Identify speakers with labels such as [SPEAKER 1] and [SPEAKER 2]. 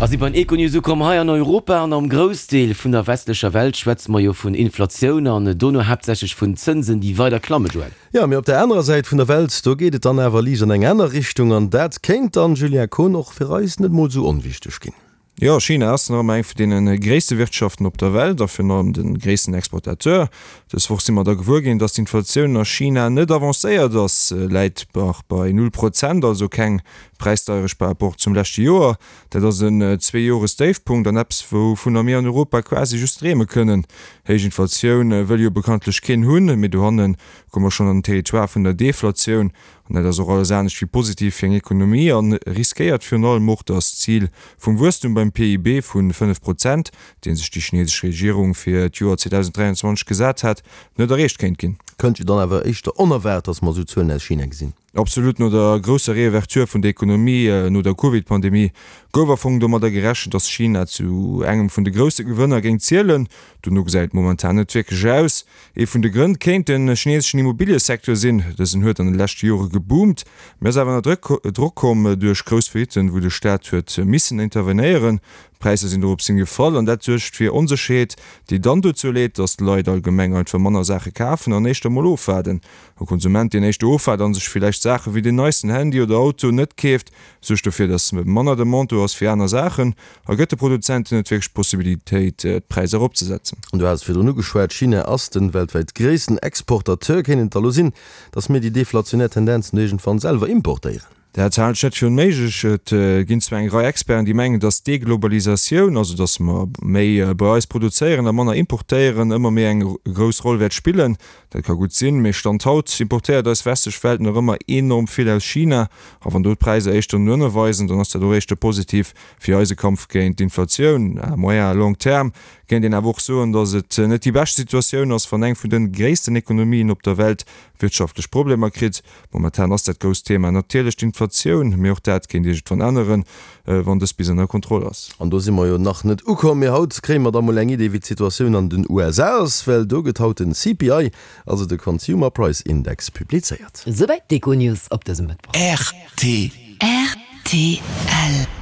[SPEAKER 1] A si beim Econews ukomm. Hei an Europa an am Groussdeel vun der westlecher Welt schwätze mer jo vun Inflatioun an dono haaptsächlech vun Zënsen, déi weider klammen, Joël.
[SPEAKER 2] Jo, mee op der anerer Säit vun der Welt, do geet et dann awer liicht an eng aner Richtung. An dat kéint dann, Julien Kohn, och fir eis net mol esou onwichteg ginn.
[SPEAKER 3] Jo, China ass nach ëmmer eng vun deene gréisste Wirtschaften op der Welt a virun allem de gréissten Exportateur. Dës Woch si mer da gewuer ginn, datt d'Inflatioun a China net avancéiert ass, läit nach bei null Prozent, also keng Präisdeierecht par rapport zum leschte Joer. Dat ass en Zweejoresdéifpunkt an eppes, wouvunner mir an Europa quasi just dreeme kënnen. Héich Inflatioun wëll jo bekanntlech keen hunn, mee dohanne komme mer schonn an den Territoire vun der Deflatioun. An dat ass och alles anescht wéi positiv fir eng Ekonomie a riskéiert virun allem och, datt d'Zil vum Wuesstum beim PIB vu 5 Prozent, dee sech déi chinesesch Regierung fir d'Joer 2023 gesat hat, net erreecht kéint ginn.
[SPEAKER 2] Kënnt jo dann awer éischter onerwaart, datt mer esou Zuelen aus China gesinn.
[SPEAKER 3] Absolut, no der grousser Reouverture vun der Ekonomie no der Covid-Pandemie gouf a Fong domadder gerechent, datt China zu engem vun de grousse Gewënner géing zielen. Dono gesäit et momentan net wierklech aus. Ee vun de Grënn kéint de chineseschen Immobiliësecteur sinn. Dësen huet an de leschte Jore geboomt, mee ass awer ënner Drock komm duerch grouss Faillitten, wou de Staat huet missen intervenéieren. D'Präisser sinn dorops hin gefall an dat suergt fir Onsécherheet, déi dann dozou leet, datt d'Leit allgemeng einfach manner Saache kafen an éischter mol ofwaarden. E Konsument, deen éischter ofwaart an sech villäicht Saache wéi den neisten Handy oder Auto net keeft, suergt dofir, datt manner Demande do ass fir aner Saachen a gëtt de Produzenten net wierklech d'Possibilitéit, d'Präisser eropzesetzen.
[SPEAKER 2] Du has et virdrun ugeschwat, China ass de weltwäit gréissten Exportateur. Kéint et da lo sinn, datt mir déi deflationär Tendenzen do iergendwann selwer importéieren?
[SPEAKER 3] Dat halen ech net fir onméiglech. Et ginn zwar eng Rei Experten, déi mengen, datt d'Deglobalisatioun, also datt mer méi bei eis produzéieren a manner importéieren, ëmmer méi eng grouss Roll wäert spillen. Dat ka gutt sinn, mee Stand haut importéiert eis westlech Welt nach ëmmer enorm vill aus China. A wann do d'Präisser éischter no ënne weisen, dann ass dat och éischter positiv fir eise Kampf géint d'Inflatioun. À moyen à long terme kéint een awer och soen, datt et net déi bescht Situatioun ass, wann eng vun de gréissten Ekonomien op der Welt wirtschaftlech Problemer kritt. Momentan ass dat grousst Thema natierlech d'Inflatioun, mee och dat kéint iergendwann änneren, wann dës bis ënner Kontroll ass.
[SPEAKER 2] An do si mer jo nach net ukomm, mee haut kréie mer da mol eng Idee wéi d'Situatioun an den USA ass, well do gëtt haut den CPI, also de Consumer Price Index, publizéiert.
[SPEAKER 1] Souwäit d'Econews op dësem Mëttwoch.
[SPEAKER 4] Rtl.
[SPEAKER 5] Rtl.